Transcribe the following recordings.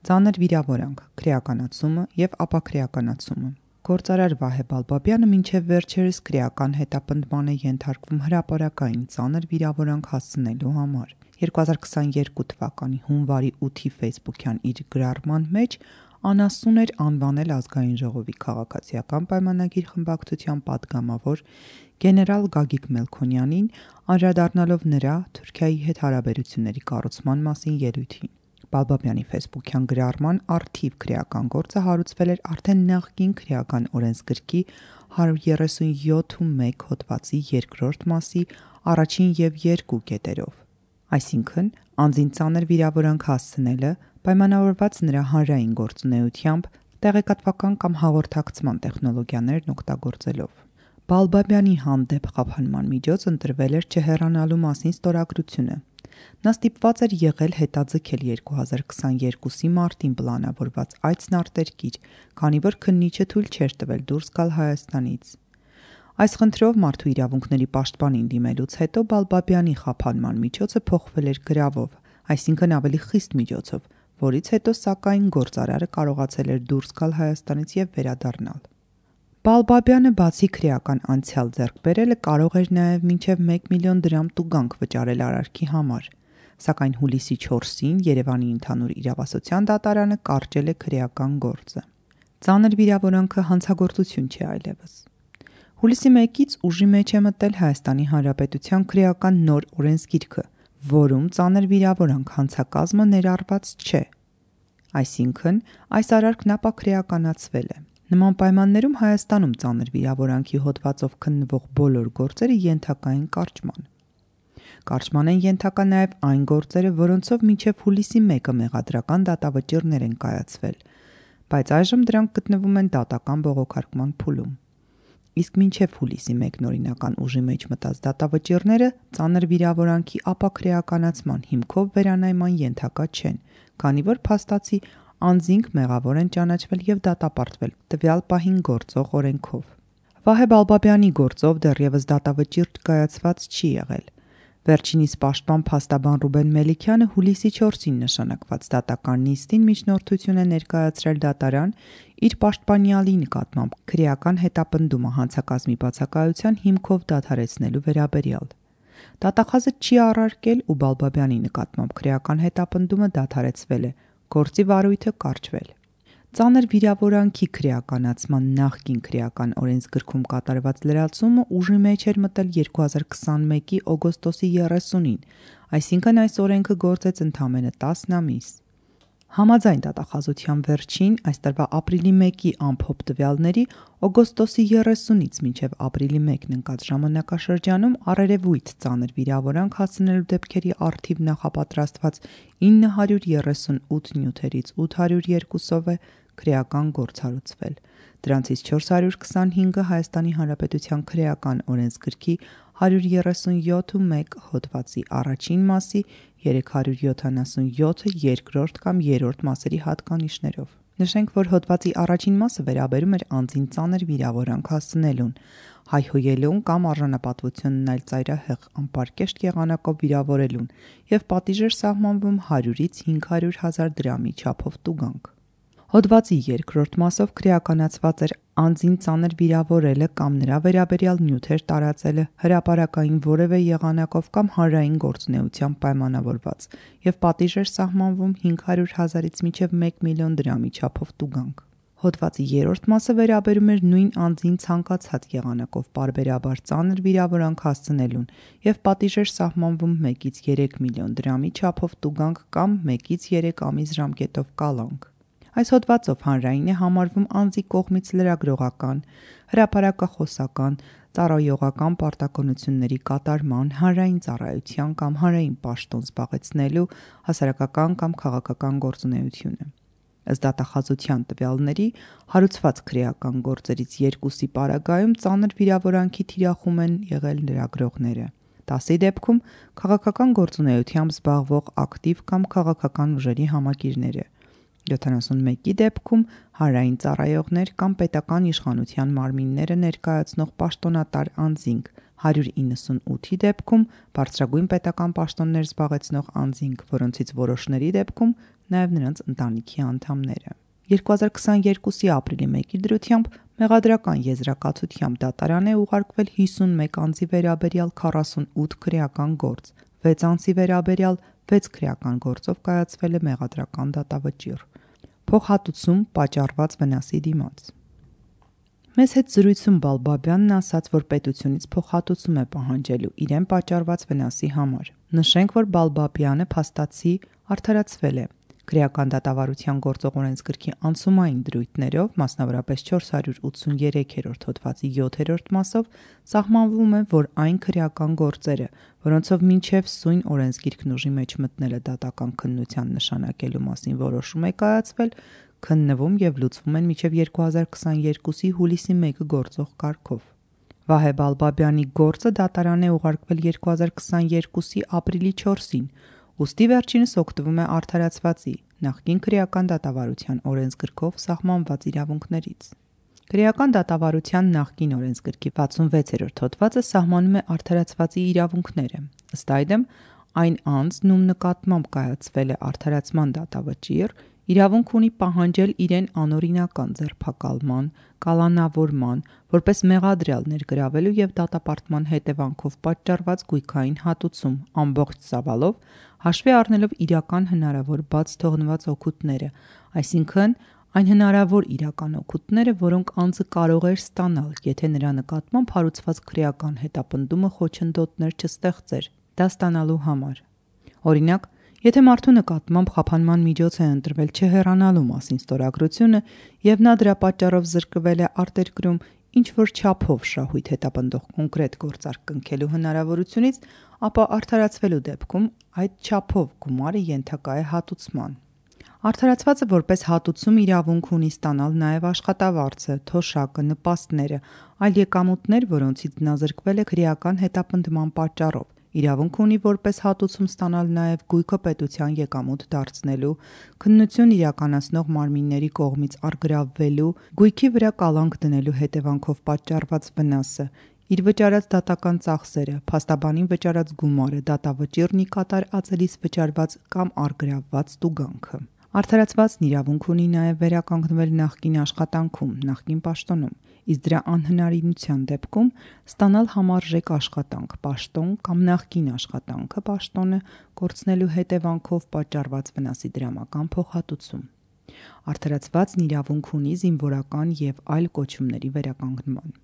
Ծանր վիրավորանք, քրեականացումը և ապաքրեականացումը։ Գործարար Վահե Բալբաբյանը մինչև վերջերս քրեական հետապնդման է ենթարկվում հրապարակային ծանր վիրավորանք հասցնելու համար։ 2022 թվականի հունվարի 8-ի ֆեյսբուքյան իր գրառման մեջ անասուն էր անվանել Ազգային ժողովի քաղաքացիական պայմանագիր խմբակցության պատգամավոր գեներալ Գագիկ Մելքոնյանին, անդրադառնալով նրա Թուրքիայի հետ հարաբերությունների կառուցման մասին ելույթին։ Բալբաբյանի ֆեյսբուքյան գրառման առթիվ քրեական գործը հարուցվել էր արդեն նախկին քրեական օրենսգրքի 137.1 հոդվածի 2-րդ մասի առաջին և 2 կետերով։ Այսինքն, անձին ծանր վիրավորանք հասցնելը պայմանավորված նրա հանրային գործունեությամբ տեղեկատվական կամ հաղորդակցման տեխնոլոգիաներն օգտագործելով։ Բալբաբյանի հանդեպ խափանման միջոց ընտրվել էր չհեռանալու մասին ստորագրությունը։ Նա ստիպված էր եղել հետաձգել 2022-ի մարտին պլանավորված այցն արտերկիր, քանի որ քննիչը թույլ չէր տվել դուրս գալ Հայաստանից։ Այս խնդրով Մարդու իրավունքների պաշտպանին դիմելուց հետո Բալբաբյանի խափանման միջոցը փոխվել էր գրավով, այսինքն ավելի խիստ միջոցով, որից հետո սակայն գործարարը կարողացել էր դուրս գալ Հայաստանից և վերադառնալ։ Բալբաբյանը բացի քրեական անցյալ ձեռք բերելը կարող էր նաև մինչև 1 միլիոն դրամ տուգանք վճարել արարքի համար, սակայն հուլիսի 4-ին Երևանի ընդհանուր իրավասության դատարանը կարճել է քրեական գործը։ Ծանր վիրավորանքը հանցագործություն չէ այլևս։ Հուլիսի 1-ից ուժի մեջ է մտել Հայաստանի Հանրապետության քրեական նոր օրենսգիրքը, որում ծանր վիրավորանք հանցակազմը ներառված չէ։ Այսինքն, այս արարքն ապաքրեականացվել է։ Նման պայմաններում Հայաստանում ծանր վիրավորանքի հոդվածով քննվող բոլոր գործերը ենթակա են կարճման։ Կարճման են ենթակա նաև այն գործերը, որոնցով մինչև հուլիսի 1-ը մեղադրական դատավճիռներ են կայացվել, բայց այժմ դրանք գտնվում են դատական բողոքարկման փուլում։ Իսկ մինչև հուլիսի 1-ն օրինական ուժի մեջ մտած դատավճիռները ծանր վիրավորանքի ապաքրեականացման հիմքով վերանայման ենթակա չեն, քանի որ փաստացի անձինք մեղավոր են ճանաչվել և դատապարտվել տվյալ պահին գործող օրենքով։ Վահե Բալբաբյանի գործով դեռևս դատավճիռ կայացված չի եղել։ Վերջինիս պաշտպան փաստաբան Ռուբեն Մելիքյանը հուլիսի 4-ին նշանակված դատական նիստին միջնորդություն է ներկայացրել դատարան իր պաշտպանյալի նկատմամբ քրեական հետապնդումը հանցակազմի բացակայության հիմքով դադարեցնելու վերաբերյալ։ Դատախազը չի առարկել ու Բալբաբյանի նկատմամբ քրեական հետապնդումը դադարեցվել է, գործի վարույթը կարճվել։ Ծանր վիրավորանքի քրեականացման նախկին քրեական օրենսգրքում կատարված լրացումը ուժի մեջ էր մտել 2021-ի օգոստոսի 30-ին, այսինքն այս օրենքը գործեց ընդամենը 10 ամիս։ Համաձայն դատախազության վերջին, այս տարվա ապրիլի 1-ի ամփոփ տվյալների, օգոստոսի 30-ից մինչև ապրիլի 1-ն ընկած ժամանակաշրջանում առերևույթ ծանր վիրավորանք հասցնելու դեպքերի առթիվ նախապատրաստված 938 նյութերից 802-ով է քրեական գործ հարուցվել։ Դրանցից 425-ը Հայաստանի Հանրապետության քրեական օրենսգրքի 137.1 հոդվածի առաջին մասի, 377-ը երկրորդ կամ երրորդ մասերի հատկանիշներով։ Նշենք, որ հոդվածի առաջին մասը վերաբերում էր անձին ծանր վիրավորանք հասցնելուն, հայհոյելուն կամ արժանապատվությունն այլ ծայրահեղ անպարկեշտ եղանակով վիրավորելուն և պատիժ էր սահմանվում 100-ից 500.000 դրամի չափով տուգանք։ Հոդվածի երկրորդ մասով քրեականացված էր անձին ծանր վիրավորելը կամ նրա վերաբերյալ նյութեր տարածելը հրապարակային որևէ եղանակով կամ հանրային գործունեությամբ պայմանավորված և պատիժ էր սահմանվում 500.000-ից մինչև 1 միլիոն դրամի չափով տուգանք։ Հոդվածի երրորդ մասը վերաբերում էր նույն անձին ցանկացած եղանակով պարբերաբար ծանր վիրավորանք հասցնելուն և պատիժ էր սահմանվում 1-ից 3 միլիոն դրամի չափով տուգանք կամ 1-ից 3 ամիս ժամկետով կալանք։ Այս հոդվածով հանրային է համարվում անձի կողմից լրագրողական, հրապարակախոսական, ծառայողական պարտականությունների կատարման, հանրային ծառայության կամ հանրային պաշտոն զբաղեցնելու, հասարակական կամ քաղաքական գործունեությունը։ Ըստ դատախազության տվյալների, հարուցված քրեական գործերից 2-ի պարագայում ծանր վիրավորանքի թիրախում են եղել լրագրողները։ 10-ի դեպքում քաղաքական գործունեությամբ զբաղվող ակտիվ կամ քաղաքական ուժերի համակիրները, 71-ի դեպքում հանրային ծառայողներ կամ պետական իշխանության մարմինները ներկայացնող պաշտոնատար անձինք, 198-ի դեպքում բարձրագույն պետական պաշտոններ զբաղեցնող անձինք, որոնցից որոշների դեպքում նաև նրանց ընտանիքի անդամները։ 2022-ի ապրիլի 1-ի դրությամբ մեղադրական եզրակացությամբ դատարան է ուղարկվել 51 անձի վերաբերյալ 48 քրեական գործ, 6 անձի վերաբերյալ 6 քրեական գործով կայացվել է մեղադրական դատավճիռ։ Փոխհատուցում պատճառված վնասի դիմաց։ Մեզ հետ զրույցում Բալբաբյանն ասաց, որ պետությունից փոխհատուցում է պահանջելու իրեն պատճառված վնասի համար։ Նշենք, որ Բալբաբյանը փաստացի արդարացվել է։ Քրեական դատավարության գործող օրենսգրքի անցումային դրույթներով, մասնավորապես 483-րդ հոդվածի 7-րդ մասով, սահմանվում է, որ այն քրեական գործերը, որոնցով մինչև սույն օրենսգիրքն ուժի մեջ մտնելը դատական քննության նշանակելու մասին որոշում է կայացվել, քննվում և լուծվում են մինչև 2022-ի հուլիսի 1-ը գործող կարգով։ Վահե Բալբաբյանի գործը դատարան է ուղարկվել 2022-ի ապրիլի 4-ին, ուստի վերջինս օգտվում է արդարացվածի նախկին քրեական դատավարության օրենսգրքով սահմանված իրավունքներից։ Քրեական դատավարության նախկին օրենսգրքի 66-րդ հոդվածը սահմանում է արդարացվածի իրավունքները։ Ըստ այդմ, այն անձն, ում նկատմամբ կայացվել է արդարացման դատավճիռ, իրավունք ունի պահանջել իրեն անօրինական ձերբակալման, կալանավորման, որպես մեղադրյալ ներգրավելու և դատապարտման հետևանքով պատճառված գույքային հատուցում ամբողջ ծավալով, հաշվի առնելով իրական հնարավոր բաց թողնված օգուտները, այսինքն այն հնարավոր իրական օգուտները, որոնք անձը կարող էր ստանալ, եթե նրա նկատմամբ հարուցված քրեական հետապնդումը խոչընդոտներ չստեղծեր դա ստանալու համար։ Օրինակ, եթե մարդու նկատմամբ խափանման միջոց է ընտրվել չհեռանալու մասին ստորագրությունը և նա դրա պատճառով զրկվել է արտերկրում ինչ-որ չափով շահույթ հետապնդող կոնկրետ գործարք կնքելու հնարավորությունից, ապա արդարացվելու դեպքում այդ չափով գումարը ենթակա է հատուցման։ Արդարացվածը որպես հատուցում իրավունք ունի ստանալ նաև աշխատավարձը, թոշակը, նպաստները, այլ եկամուտներ, որոնցից նա զրկվել է քրեական հետապնդման պատճառով։ Իրավունք ունի որպես հատուցում ստանալ նաև գույքը պետության եկամուտ դարձնելու, քննություն իրականացնող մարմինների կողմից առգրավվելու, գույքի վրա կալանք դնելու հետևանքով պատճառված վնասը, իր վճարած դատական ծախսերը, փաստաբանին վճարած գումարը, դատավճիռն ի կատար ածելիս վճարված կամ առգրավված տուգանքը։ Արդարացվածն իրավունք ունի նաև վերականգնվել նախկին աշխատանքում, նախկին պաշտոնում, իսկ դրա անհնարինության դեպքում ստանալ համարժեք աշխատանք, պաշտոն կամ նախկին աշխատանքը, պաշտոնը կորցնելու հետևանքով պատճառված վնասի դրամական փոխհատուցում։ Արդարացվածն իրավունք ունի զինվորական և այլ կոչումների վերականգնման։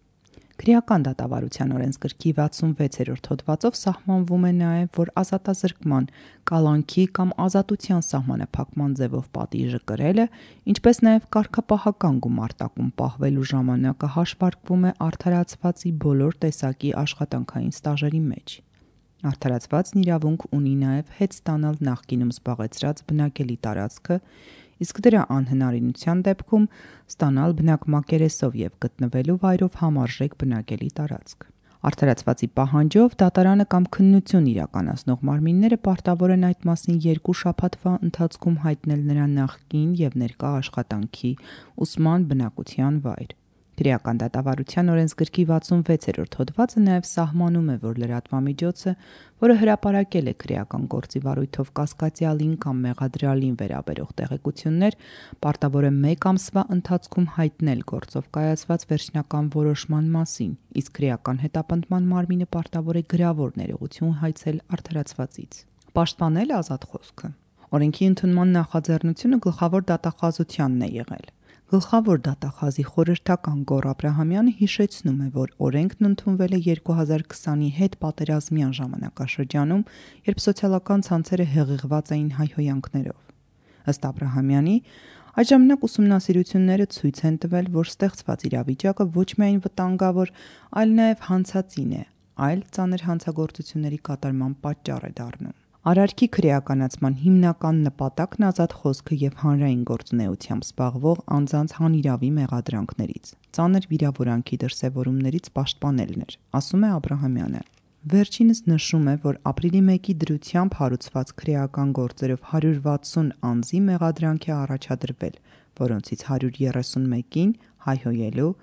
Քրեական դատավարության օրենսգրքի 66-րդ հոդվածով սահմանվում է նաև, որ ազատազրկման, կալանքի կամ ազատության սահմանափակման ձևով պատիժը կրելը, ինչպես նաև կարգապահական գումարտակում պահվելու ժամանակը հաշվարկվում է արդարացվածի բոլոր տեսակի աշխատանքային ստաժերի մեջ։ Արդարացվածն իրավունք ունի նաև հետ ստանալ նախկինում զբաղեցրած բնակելի տարածքը, իսկ դրա անհնարինության դեպքում ստանալ բնակ մակերեսով և գտնվելու վայրով համարժեք բնակելի տարածք։ Արդարացվածի պահանջով դատարանը կամ քննություն իրականացնող մարմինները պարտավոր են այդ մասին 2 շաբաթվա ընթացքում հայտնել նրա նախկին և ներկա աշխատանքի, ուսման, բնակության վայր։ Քրեական դատավարության օրենսգրքի 66-րդ հոդվածը նաև սահմանում է, որ լրատվամիջոցը, որը հրապարակել է քրեական գործի վարույթով կասկածյալին կամ մեղադրյալին վերաբերող տեղեկություններ, պարտավոր է 1 ամսվա ընթացքում հայտնել գործով կայացված վերջնական որոշման մասին, իսկ քրեական հետապնդման մարմինը պարտավոր է գրավոր ներողություն հայցել արդարացվածից։ Պաշտպանել ազատ խոսքը։ Օրենքի ընդունման նախաձեռնությունը գլխավոր դատախազությանն է եղել։ Գլխավոր դատախազի խորհրդական Գոռ Աբրահամյանը հիշեցնում է, որ օրենքն ընդունվել է 2020-ի հետպատերազմյան ժամանակաշրջանում, երբ սոցիալական ցանցերը հեղեղված էին հայհոյանքներով։ Ըստ Աբրահամյանի, այդ ժամանակ ուսումնասիրությունները ցույց են տվել, որ ստեղծված իրավիճակը ոչ միայն վտանգավոր, այլ նաև հանցածին է, այլ ծանր հանցագործությունների կատարման պատճառ է դառնում։ Արարքի քրեականացման հիմնական նպատակն ազատ խոսքը և հանրային գործունեությամբ զբաղվող անձանց հանիրավի մեղադրանքներից, ծանր վիրավորանքի դրսևորումներից պաշտպանելն էր, ասում է Աբրահամյանը։ Վերջինս նշում է, որ ապրիլի 1-ի դրությամբ հարուցված քրեական գործերով 160 անձի մեղադրանք է առաջադրվել, որոնցից 131-ին հայհոյելու,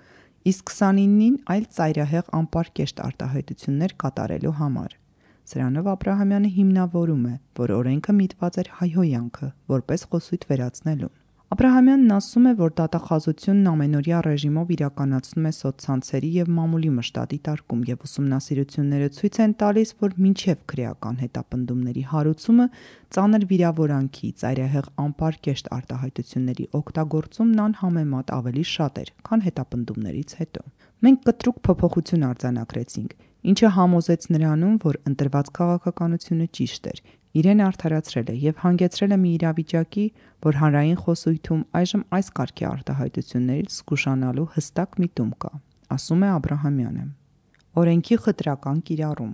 իսկ 29-ին այլ ծայրահեղ անպարկեշտ արտահայտություններ կատարելու համար։ Սրանով Աբրահամյանը հիմնավորում է, որ օրենքը միտված էր հայհոյանքը, որպես խոսույթ վերացնելուն։ Աբրահամյանն ասում է, որ դատախազությունն ամենօրյա ռեժիմով իրականացնում է սոցցանցերի եւ մամուլի մշտադի տարկում եւ ուսումնասիրությունները ցույց են տալիս, որ մինչեւ քրեական հետապնդումների հարուցումը ծանր վիրավորանքի, ծայրահեղ անպարկեշտ արտահայտությունների օգտագործումն անհամեմատ ավելի շատ էր, քան հետապնդումներից հետո։ Մենք կտրուկ փոփոխություն արձանագրեցինք, ինչը համոզեց նրանում, որ ընտրված քաղաքականությունը ճիշտ էր, իրեն արդարացրել է եւ հանգեցրել է մի իրավիճակի, որ հանրային խոսույթում այժմ այս կարգի արտահայտություններից զգուշանալու հստակ միտում կա, ասում է Աբրահամյանը։ Օրենքի խտրական կիրառում։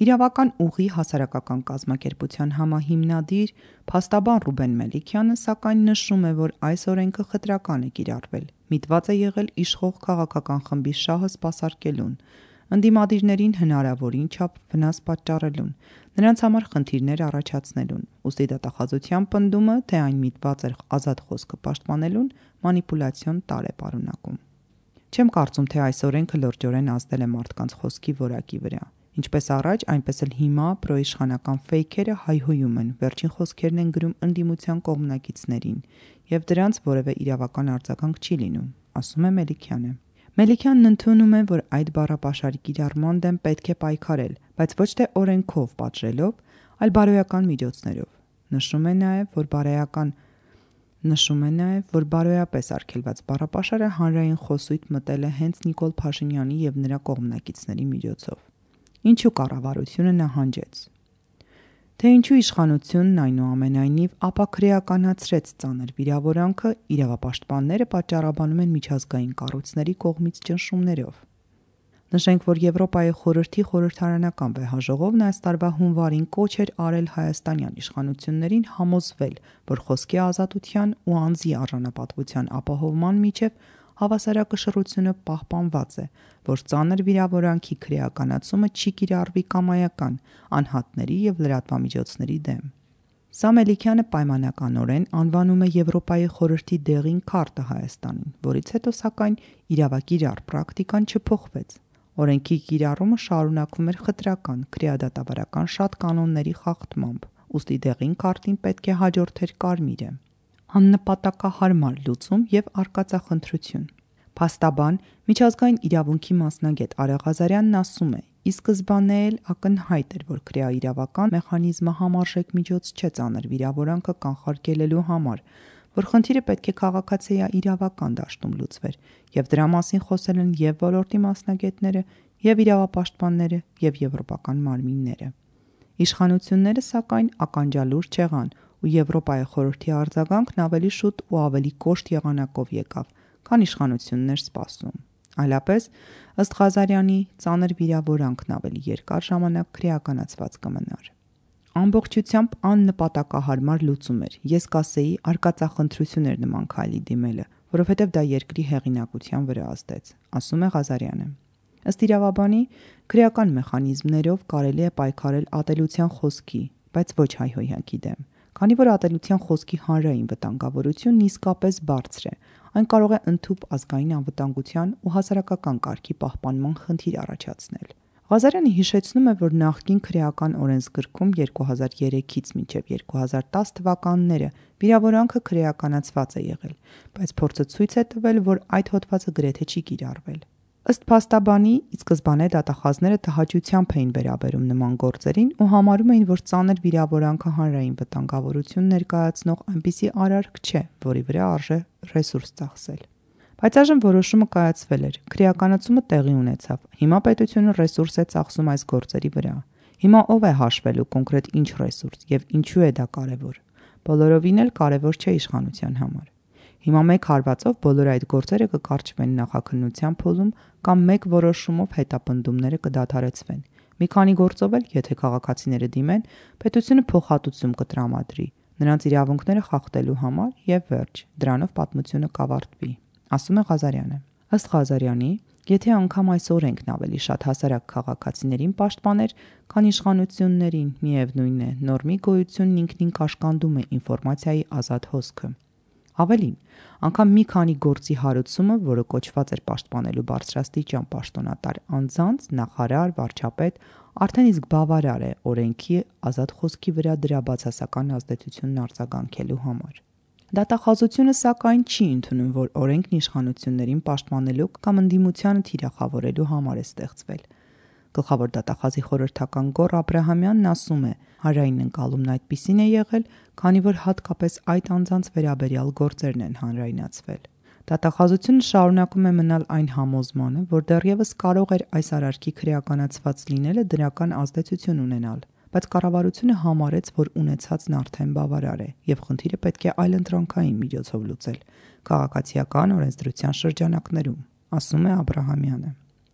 Իրավական ուղի հասարակական կազմակերպության համահիմնադիր փաստաբան Ռուբեն Մելիքյանը սակայն նշում է, որ այս օրենքը խտրական է կիրառվել, միտված է եղել իշխող քաղաքական խմբի շահը սպասարկելուն, ընդդիմադիրներին հնարավորին չափ վնաս պատճառելուն, նրանց համար խնդիրներ առաջացնելուն, ուստի դատախազության պնդումը, թե այն միտված էր ազատ խոսքը պաշտպանելուն, մանիպուլյացիոն տարր է պարունակում։ Չեմ կարծում, թե այս օրենքը լրջորեն ազդել է մարդկանց խոսքի որակի վրա։ Ինչպես առաջ, այնպես էլ հիմա պրոիշխանական ֆեյքերը հայհոյում են, վերջին խոսքերն են գրում ընդդիմության կողմնակիցներին, եւ դրանց որևէ իրավական արձագանք չի լինում, ասում է Մելիքյանը։ Մելիքյանն ընդունում է, որ այդ բառապաշարի կիրառման դեմ պետք է պայքարել, բայց ոչ թե օրենքով պատժելով, այլ բարոյական միջոցներով։ Նշում է նաև, որ բարոյապես արգելված բառապաշարը հանրային խոսույթ մտել է հենց Նիկոլ Փաշինյանի եւ նրա կողմնակիցների միջոցով։ Ինչու կառավարությունը նահանջեց։ Թե ինչու իշխանությունն այնուամենայնիվ ապաքրեականացրեց ծանր վիրավորանքը, իրավապաշտպանները պատճառաբանում են միջազգային կառույցների կողմից ճնշումներով։ Նշենք, որ Եվրոպայի խորհրդի խորհրդարանական վեհաժողովն այս տարվա հունվարին կոչ էր արել հայաստանյան իշխանություններին համոզվել, որ խոսքի ազատության ու անձի արժանապատվության ապահովման միջև հավասարակշռությունը պահպանված է, որ ծանր վիրավորանքի քրեականացումը չի կիրառվի կամայական, անհատների եւ լրատվամիջոցների դեմ։ Սա Մելիքյանը պայմանականորեն անվանում է Եվրոպայի խորհրդի դեղին քարտը Հայաստանին, որից հետո սակայն իրավակիրառ պրակտիկան չփոխվեց։ Օրենքի կիրառումը շարունակվում էր խտրական, քրեադատավարական շատ կանոնների խախտմամբ, ուստի դեղին քարտին պետք է հաջորդեր կարմիրը։ Աննպատակահարմար լուծում եւ արկածախնդրություն։ Փաստաբան, միջազգային իրավունքի մասնագետ Արեղ Ղազարյանն ասում է. «Ի սկզբանե էլ ակնհայտ էր, որ քրեաիրավական մեխանիզմը համարժեք միջոց չէ ծանր վիրավորանքը կանխարգելելու համար, որ խնդիրը պետք է քաղաքացիաիրավական դաշտում լուծվեր, եւ դրա մասին խոսել են եւ ոլորտի մասնագետները, եւ իրավապաշտպանները, եւ եվրոպական մարմինները։ Իշխանությունները սակայն ականջալուր չեղան, ու Եվրոպայի խորհրդի արձագանքն ավելի շուտ ու ավելի կոշտ եղանակով եկավ, քան իշխանությունն էր սպասում։ Այլապես, ըստ Ղազարյանի, ծանր վիրավորանքն ավելի երկար ժամանակ քրեականացված կմնար։ Ամբողջությամբ աննպատակահարմար լուծում էր, ես կասեի արկածախնդրություն էր նման քայլի դիմելը, որովհետև դա երկրի հեղինակության վրա ազդեց, ասում է Ղազարյանը։ Ըստ իրավաբանի, քրեական մեխանիզմներով կարելի է պայքարել ատելության խոսքի, բայց ոչ հայհոյանքի դեմ, քանի որ ատելության խոսքի հանրային վտանգավորությունն իսկապես բարձր է, այն կարող է ընդհուպ ազգային անվտանգության ու հասարակական կարգի պահպանման խնդիր առաջացնել։ Ղազարյանը հիշեցնում է, որ նախկին քրեական օրենսգրքում 2003-ից մինչև 2010 թվականները վիրավորանքը քրեականացված է եղել, բայց փորձը ցույց է տվել, որ այդ հոդվածը գրեթե չի կիրառվել։ Ըստ փաստաբանի, ի սկզբանե դատախազները տհաճությամբ էին վերաբերում նման գործերին ու համարում էին, որ ծանր վիրավորանքը հանրային վտանգավորություն ներկայացնող այնպիսի արարք չէ, որի վրա արժե ռեսուրս ծախսել։ Բայց այժմ որոշումը կայացվել էր, քրեականացումը տեղի ունեցավ, հիմա պետությունը ռեսուրս է ծախսում այս գործերի վրա։ Հիմա ով է հաշվելու կոնկրետ ինչ ռեսուրս եւ ինչու է դա կարեւոր։ Բոլորովին էլ կարեւոր չէ իշխանության համար։ Հիմա մեկ հարվածով բոլոր այդ գործերը կկարճվեն նախաքննության փուլում կամ մեկ որոշումով հետապնդումները կդադարեցվեն։ Մի քանի գործով էլ, եթե քաղաքացիները դիմեն, պետությունը փոխհատուցում կտրամադրի նրանց իրավունքները խախտելու համար եւ վերջ, դրանով պատմությունը կավարտվի, ասում է Ղազարյանը։ Ըստ Ղազարյանի, եթե անգամ այս օրենքն ավելի շատ հասարակ քաղաքացիներին պաշտպաներ, քան իշխանություններին, միևնույն է, նորմի գոյությունն ինքնին կաշկանդում է ինֆորմացիայի ազատ հոսքը։ Ավելին, անգամ մի քանի գործի հարուցումը, որը կոչված էր պաշտպանելու բարձրաստիճան պաշտոնատար անձանց, նախարար, վարչապետ, արդեն իսկ բավարար է օրենքի ազատ խոսքի վրա դրա բացասական ազդեցությունն արձագանքելու համար։ Դատախազությունը սակայն չի ընդունում, որ օրենքն իշխանություններին պաշտպանելու կամ ընդդիմությանը թիրախավորելու համար է ստեղծվել։ Գլխավոր դատախազի խորհրդական Գոռ Աբրահամյանն ասում է, հանրային ընկալումն այդպիսին է եղել, քանի որ հատկապես այդ անձանց վերաբերյալ գործերն են հանրայնացվել։ Դատախազությունը շարունակում է մնալ այն համոզմանը, որ դեռևս կարող էր այս արարքի քրեականացված լինելը դրական ազդեցություն ունենալ, բայց կառավարությունը համարեց, որ ունեցածն արդեն բավարար է եւ խնդիրը պետք է այլընտրանքային միջոցով լուծել քաղաքացիական օրենսդրության շրջանակներում, ասում է Աբրահամյանը։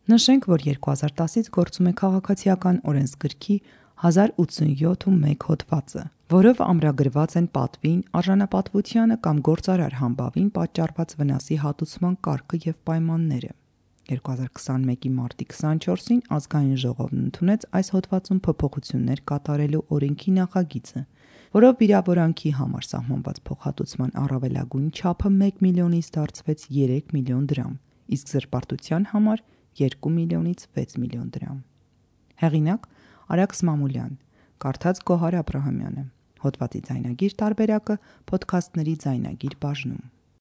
Նշենք, որ 2010-ից գործում է քաղաքացիական օրենսգրքի 1087-1 հոդվածը, որով ամրագրված են պատվին, արժանապատվությանը կամ գործարար համբավին պատճառված վնասի հատուցման կարգը եւ պայմանները։ 2021-ի մարտի 24-ին Ազգային ժողովն ընդունեց այս հոդվածում փոփոխություններ կատարելու օրենքի նախագիծը, որով վիրավորանքի համար սահմանված փոխհատուցման առավելագույն չափը 1 միլիոնից դարձվեց 3 միլիոն դրամ, իսկ զրպարտության համար 2 միլիոնից 6 միլիոն դրամ։ Հեղինակ Արաքս Մամուլյան, կարդաց Գոհար Աբրահամյանը։ Հոդվածի ձայնագիր տարբերակը Փոդքասթների ձայնագիր բաժնում։